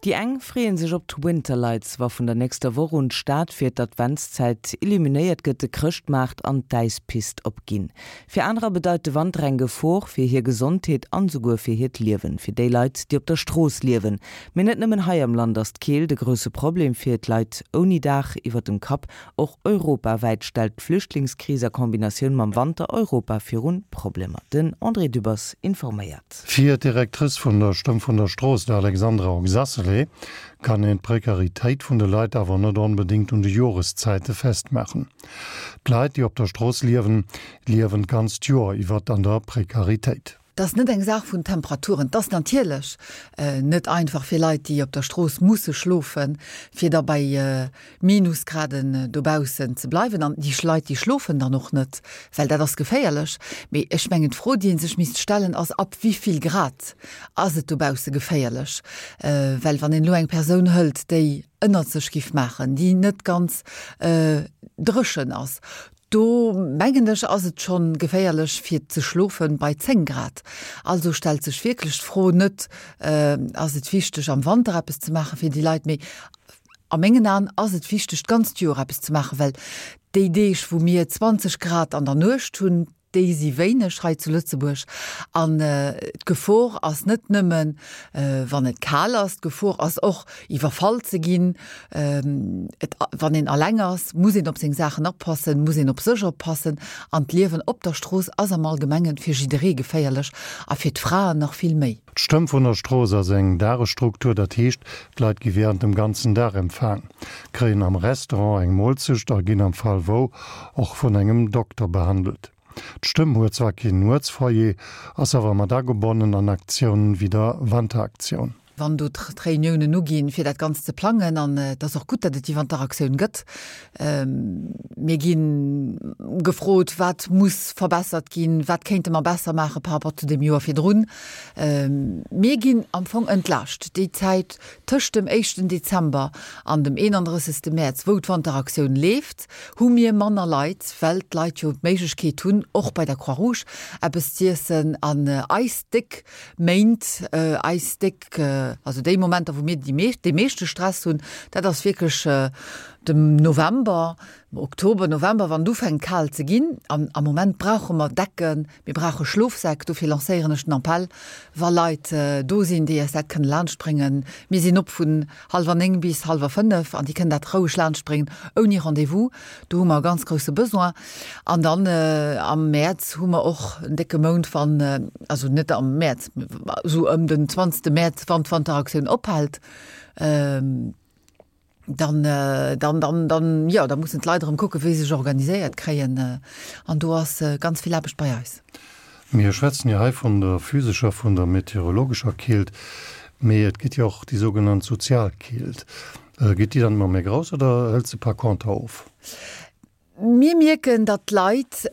Déi eng freeën sech op d'Winterlights, wa vun der nächster Woch un d'Stad fir d'Adventszäit illuminéiert gëtt, de Chrëschtmaart an d'Äispist opginn. Fir anerer bedeit de Wanter eng Gefor fir hir Gesondheet an esouguer fir hiert Liewen, fir déi Leit, déi op der Strooss liewen. Mee net nëmmen hei am Land ass d'Keelt e grousse Problem fir d'Leit ouni Daach iwwer dem Kapp. Och europawäit stellt d'Flüchtlingskris a Kombinatioun mam Wanter Europa virun Problemer. Den André Dübbers informéiert. Fir d'Directrice vun der Stëmm vun der Strooss, d'Alexandra Oxacelay, kann een d'Prekaritéit vun de Leit awer net onbedéngt un de Joreszäite festmaachen. D'Leit, déi op der Strooss liewen, liewen d'ganzt Joer iwwer an der Prekaritéit. 't ass net eng Saach vun Temperaturen. 't ass natierlech net einfach fir Leit, déi op der Strooss musse schlofen, fir da bei Minusgraden dobaussen ze bleiwen. An déi Leit, déi schlofen dann och net, well dat ass geféierlech. Mee ech mengen, d'Fro, déi ee sech misst stellen, ass, Ab wéi vill Grad ass et dobausse geféierlech? Well wann een elo eng Persoun hëlt, déi ënnert sech giff maachen, déi net ganz dréchen ass, Do mengen ech ass et schonn geféierlech fir ze schlofen bei 10 Grad. Also stellt sech wierklech d'Fro net, ass et wichteg am Wanter eppes ze maachen fir déi Leit, mee a mengen Aen ass et wichteg d'ganzt Joer eppes ze maachen, well déi Deeg wou mir 20 Grad an der Nuecht hunn, déi si wéineg hei zu Lëtzebuerg. An d'Gefor ass net nëmmen wann et kal ass, d'Gefor ass och iwwerfall ze ginn. Et, wann een alleng ass, muss een op seng Saachen oppassen, muss een op sech oppassen. An d'Liewen op der Strooss ass am Allgemengen fir jidderee geféierlech a fir d'Fraen nach vill méi. D'Stëmm vun der Strooss ass eng Dagesstruktur, dat heescht, d'Leit gi wärend dem ganzen Dag empfaang, kréien am Restaurant eng Moolzecht a ginn am Fall wou och vun engem Dokter behandelt. D'Stëmm huet zwar keen Nuetsfoyer, ass awer mat agebonnen an Aktiounen wéi der Wanteraktioun. Wann do d'Reuniounen uginn, fir dat Ganzt ze plangen, an et ass och gutt, datt et déi Wanteraktioun gëtt, mir gi gefrot, wat muss verbessert ginn, wat kéinte mer besser maache par rapport zu deem Joer virdrun. Mir ginn am Fong entlaascht. Déi Zäit tëscht dem éischten Dezember an dem 31. Mäerz, wou d'Wanteraktioun leeft, hu mir manner Leit, well d'Leit jo d'Méiglechkeet hunn, och bei der Croix-Rouge eppes z'iessen an eis déck Méint, eis déck, also déi Momenter, wou mir déi meescht, dee meeschte Stress hunn, dat ass wierklech de November, Oktober, November, wann et ufänkt kal ze ginn. An am Moment brauche mer Decken, mir brauche Schlofsäck. Dofir lancéieren ech den Appell, wa Leit do sinn, déi eis dat kënne laanschtbréngen. Mir sinn op vun hallwer 9 bis hallwer 5 an déi kënnen dat roueg laanschtbréngen, ouni Rendez-vous. Do hu mer e ganz grousse Besoin. An dann am Mäerz hu mer och en décke Mount, wann, also net am Mäerz, esou ëm den 20. Mäerz, wann d'Wanteraktioun ophält, dann, dann, dann, dann, jo, da mussen d'Leit erëm kucken, wéi se sech organiséiert kréien. An do ass ganz vill Aarbecht bei eis. Mir schwätzen jo hei vun der physescher, vun der meteorologescher Keelt, mee et gëtt jo och déi sougenannt sozial Keelt. Geet déi dann ëmmer méi grouss oder hëlt se par conter of? Mir mierken, datt d'Leit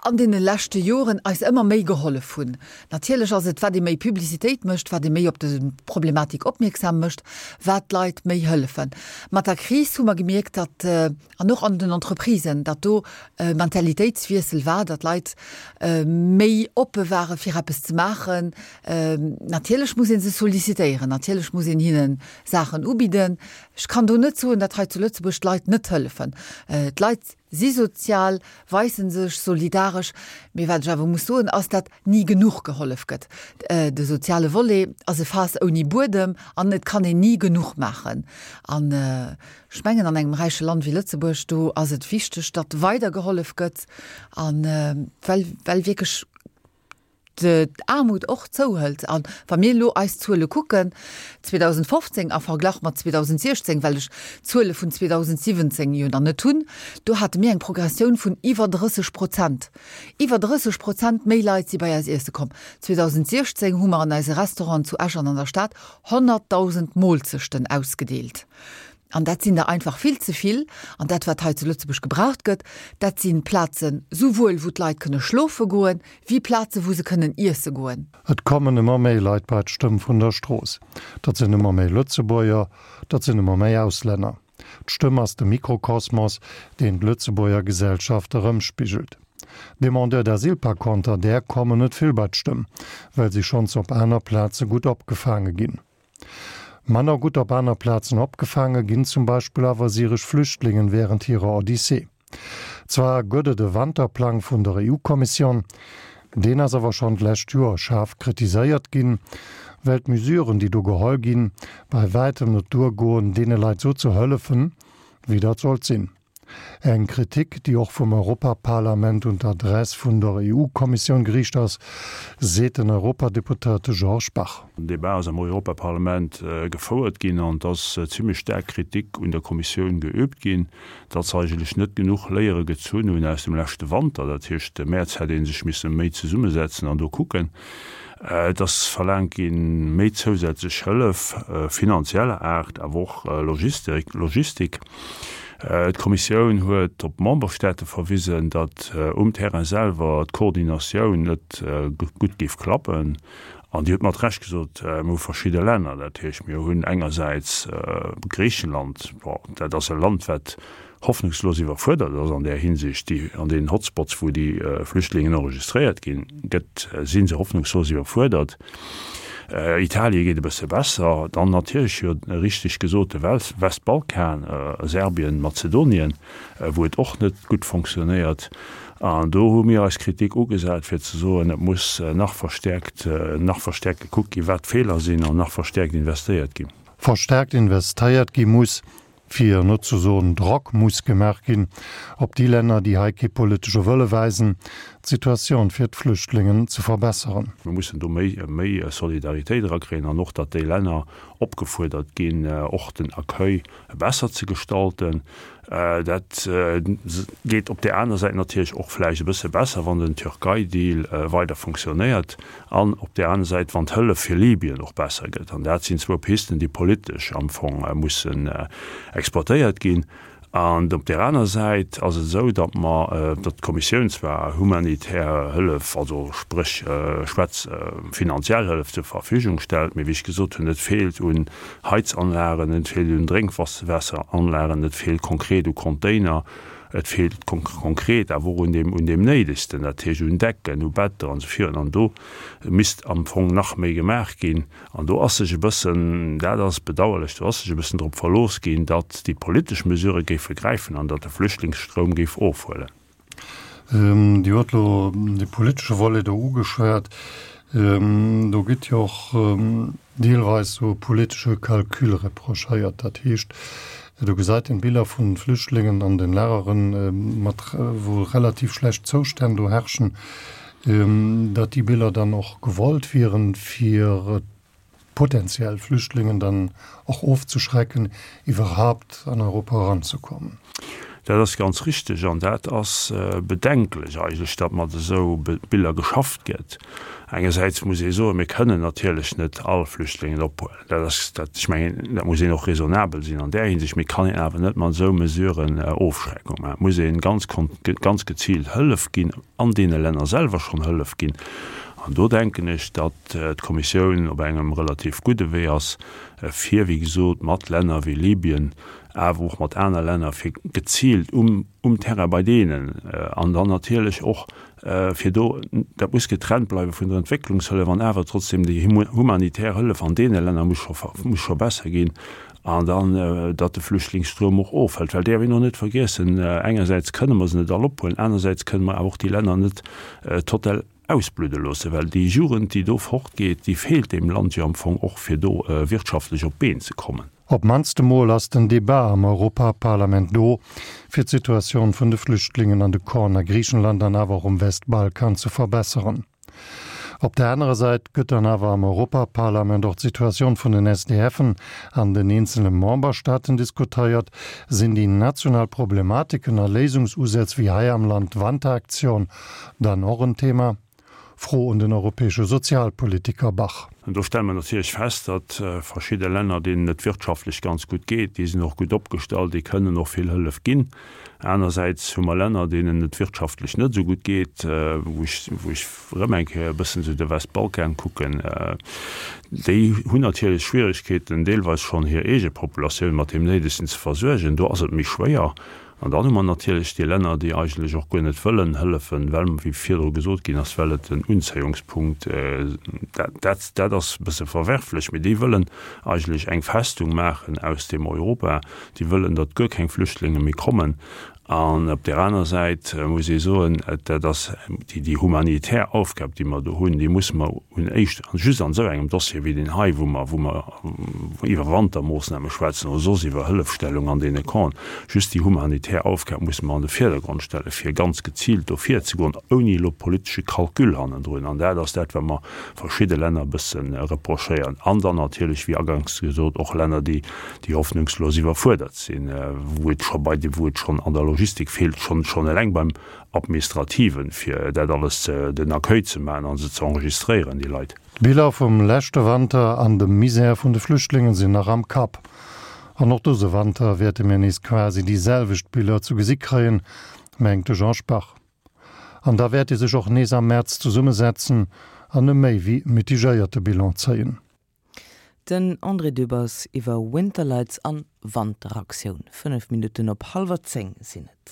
an deene leschte Joren eis ëmmer méi gehollef hunn. Natierlech ass et, wat ee méi Publicitéit mécht, wat ee méi op de Problematik opmierksam mécht, wat d'Leit méi hëllefen. Mat der Kris hu mer gemierkt, datt, an och an den Entreprisen, datt do e Mentalitéitswiessel war, datt d'Leit méi oppe ware fir eppes ze maachen. Natierlech muss ee se sollicitéieren, natierlech muss een hinne Saachen ubidden. Ech kann do net soen, datt hei zu Lëtzebuerg d'Leit net hëllefen. D'Leit si sozial, weise sech solidaresch, mee wat ech awer muss soen, ass, datt ni genuch gehollef gëtt. De soziale Volet ass e Faass ouni Buedem an et kann een ni genuch maachen. An ech mengen, an engem räiche Land wéi Lëtzebuerg, do ass et wichteg, datt weider gehollef gëtt, a well, well wierklech d'Aarmut och zouhëlt. A wa mir elo eis Zuele kucken, 2015 a Verglach mat 2016, well ech d'Zuele vun 2017 jo nach net hunn, do hate mir eng Progressioun vun iwwer 30 Prozent. Iwwer 30 Prozent méi Leit si bei eis iesse komm. 2016 hu mer an eise Restauranten zu Esch an an der Stad 100.000 Moolzechten ausgedeelt. An dat sinn der einfach vill ze vill. An dat, wat hei zu Lëtzebuerg gebraucht gëtt, dat si Plazen, souwuel wou d'Leit kënne schlofe goen, wéi Plazen, wou se kënnen iesse goen. Et kommen ëmmer méi Leit bei d'Stëmm vun der Strooss. Dat sinn ëmmer méi Lëtzebuerger, dat sinn ëmmer méi Auslänner. D'Stëmm ass de Mikrokosmos, deen d'Lëtzebuerger Gesellschaft erëmspigelt. Demandeurs d'asile par conter, där kommen net vill bei d'Stëmm, well si schonns op aner Plaze gutt opgefaange ginn. Manner gutt op aner Plazen opgefaange ginn zum Beispill awer syresch Flüchtlingen wärend hirer Odyssee. Zwar gëtt et e Wanterplang vun der EU-Kommissioun, deen ass awer schonn d'lescht Joer schaarf kritiséiert ginn, well d'Mesuren, déi do geholl ginn, bei wäitem net duergoen, deene Leit sou ze hëllefen, wéi dat sollt sinn. Eng Kritik, déi och vum Europaparlament un d'Adress vun der EU-Kommissioun geriicht ass, seet den Europadeputéierte Georges Bach. Den Debat ass am Europaparlament gefouert ginn an et ass zimmlech staark Kritik un der Kommissioun geüübt ginn, datt se eigentlech net genuch Léiere gezunn hunn aus dem leschte Wanter. Dat heescht, de Mäerz hätt ee sech misse méi zesummesetzen an do kucken. Et ass verlaangt ginn, méi zousätzlech Hëllef, finanzieller Aart, awer och Logistik. D'Kommissioun huet op d'Memberstaate verwisen, datt um Terrain selwer d'Koordinatioun net gutt géif klappen. An Dir hutt mat Recht gesot, mir hu verschidde Länner. Dat heescht, mir hunn engersäits Griichenland, bon, dat ass e Land, wat hoffnungslos iwwerfuerdert ass an där Hinsicht. Déi, an deenen Hotspots, wou déi Flüchtlingen enregistréiert ginn, gëtt, si se hoffnungslos iwwerfuerdert. Italie geet e bësse besser. Dann natierlech, jo, richteg gesot, de Westbalkan, Serbien, Mazedonien, wou et och net gutt fonctionnéiert. An do hu mir eis Kritik ugesat, fir ze soen, et muss nach verstäerkt, nach verstäerkt gekuckt ginn, wat d'Feeler sinn, an nach verstäerkt investéiert ginn. Verstäerkt investéiert gi muss, fir net ze soen Drock muss gemaach ginn op déi Länner, déi hei kee politesche Wëlle weisen, d'Situatioun fir d'Flüchtlingen ze verbesseren. Mir mussen do méi, méi Solidaritéit erakréien an och, datt déi Länner opgefuerdert ginn, och den Accueil besser ze gestalten. Dat geet op där aner Säit natierlech och vläicht e bësse besser, wann den Türkei-Deal weider funktionéiert an op där aner Säit, wann d'Hëllef fir Libyen och besser gëtt. An dat sinn zwou Pisten, déi politesch am Fong mussen exploitéiert ginn. An op där aner Säit ass et esou, datt mer, datt d'Kommissioun zwar humanitär Hëllef, also spréch schwätz finanziell Hëllef zur Verfügung stellt, mee wéi ech gesot hunn, et feelt un Heizanlagen, et feelt un Drénkwaasseranlagen, et feelt konkret u Container, et feelt konkret awer och un deem, un deem Néidegsten, dat heescht un Decken, u Better an esou virun. An do misst am Fong nach méi gemaach ginn. An do ass sech e bëssen, dat ass bedauerlech, do ass sech e bëssen drop verlooss ginn, datt déi politesch Mesurë géife gräifen an datt de Flüchtlingsstroum géif ofhuelen. Dir hutt elo de politesche Volet do ugeschwat. Do gëtt jo och deelweis esou e politesche Calcul reprochéiert. Dat heescht, do gesäit een Biller vu Flüchtlingen an den Lageren, mat wou relativ schlecht Zoustänn do herrschen, datt déi Biller dann och gewollt wieren, fir potenziell Flüchtlingen dann och ofzeschrecken, iwwerhaupt an Europa eranzekommen. Dat ass ganz richtig an dat ass bedenklech eigentlech, datt mat esou Biller geschafft gëtt. Engersäits muss ee soen, mir kënnen natierlech net all Flüchtlingen ophuelen. Dat ass dat, ech mengen, dat muss een och raisonnabel sinn an där Hinsicht. Mee et kann een awer net mat esou Mesuren Ofschreckung maachen. Et muss ee ganz, ganz geziilt Hëllef ginn, an deene Länner selwer schonn Hëllef ginn. An do denken ech, datt d'Kommissioun op engem relativ gudde Wee ass, fir, wéi gesot, mat Länner wéi Libyen, awer och mat aner Länner, fir geziilt um um Terrain bei deenen an dann natierlech och fir do, dat muss getrennt bleiwe vun der Entwécklungshëllef an awer trotzdem déi humanitär Hëllef an deene Länner muss scho muss scho besser ginn an dann, datt de Flüchtlingsstroum och ofhëlt. Well däerf een och net vergiessen, engersäits kënne mer se net all ophuelen, anersäits kënne mer awer och déi Länner net total ausbludde loossen, well déi Jugend, déi do fortgeet, déi feelt deem Land jo am Fong och, fir do wirtschaftlech op d'Been ze kommen. Op d'mannst emol ass den Debat am Europaparlament do, fir d'Situatioun vun de Flüchtlingen an de Campen a Griichenland an awer och um Westbalkan ze verbesseren. Op der anerer Säit gëtt dann awer am Europaparlament och d'Situatioun vun den SDFen an den eenzele Memberstaaten diskuteiert. Sinn déi national Problematiken a Léisungsusätz wéi hei am Land d'Wanteraktion dann och en Thema? Fro un den europäesche Sozialpolitiker Bach. An do stelle mer natierlech fest, datt verschidde Länner, deenen et wirtschaftlech ganz gutt geet, déi sinn och gutt opgestallt, déi kënnen och vill Hëllef ginn. Anersäits hu mer Länner, deenen et wirtschaftlech net esou gutt geet, wou ech, wou ech erëm eng Kéier e bëssen esou de Westbalkan kucken, déi hunn natierlech Schwierigkeeten, deelweis schonn hir eege Populatioun mat deem Néidegsten ze versuergen. Do ass et méi schwéier. An dann hu mer natierlech déi Länner, déi eigentlech och guer net wëllen hëllefen, well, wéi virdru gesot ginn ass, well et en Unzéiungspunkt, dat, dat ass e bësse verwerflech, mee déi wëllen eigentlech eng Festung maachen aus deem Europa, déi wëllen, datt guer keng Flüchtlinge méi kommen. An op där aner Säit muss ee soen, dat ass déi humanitär Aufgab, déi mer do hunn, déi musse mer un éischt, just an esou engem Dossier wéi deen hei, wou mer, wou mer iwwer Wantermoossname schwätzen oder soss iwwer Hëllefstellung an deene Campen, just déi humanitär Aufgab musse mer an de Virdergrond stellen, fir ganz geziilt do virzegoen, ouni elo politesche Calcul hannendrun. An dat ass dat, wat mer verschidde Länner e bësse reprochéieren. An dann natierlech, wéi aganks gesot, och Länner, déi déi hoffnungslos iwwerfuerdert sinn, wou et scho bei de, wou et schonn an der Logistik feelt, schonn, schonn eleng beim Administrativen, fir dat alles ze, den Accueil ze maachen a se ze enregistréieren, déi Leit. D'Biller vum leschte Wanter an dem Misär vun de Flüchtlingen sinn nach am Kapp. An och dëse Wanter wäerte mir nees quasi déi selwecht Biller zu gesi kréien, mengt de Jean Spach. An da wäert ee sech och nees am Mäerz zesummesetzen an e méi wéi mitigéierte Bilan zéien. Den André Dübbers iwwer Winterlights an Wanteraktioun. 5 Minutten op hallwer 10 sinn et.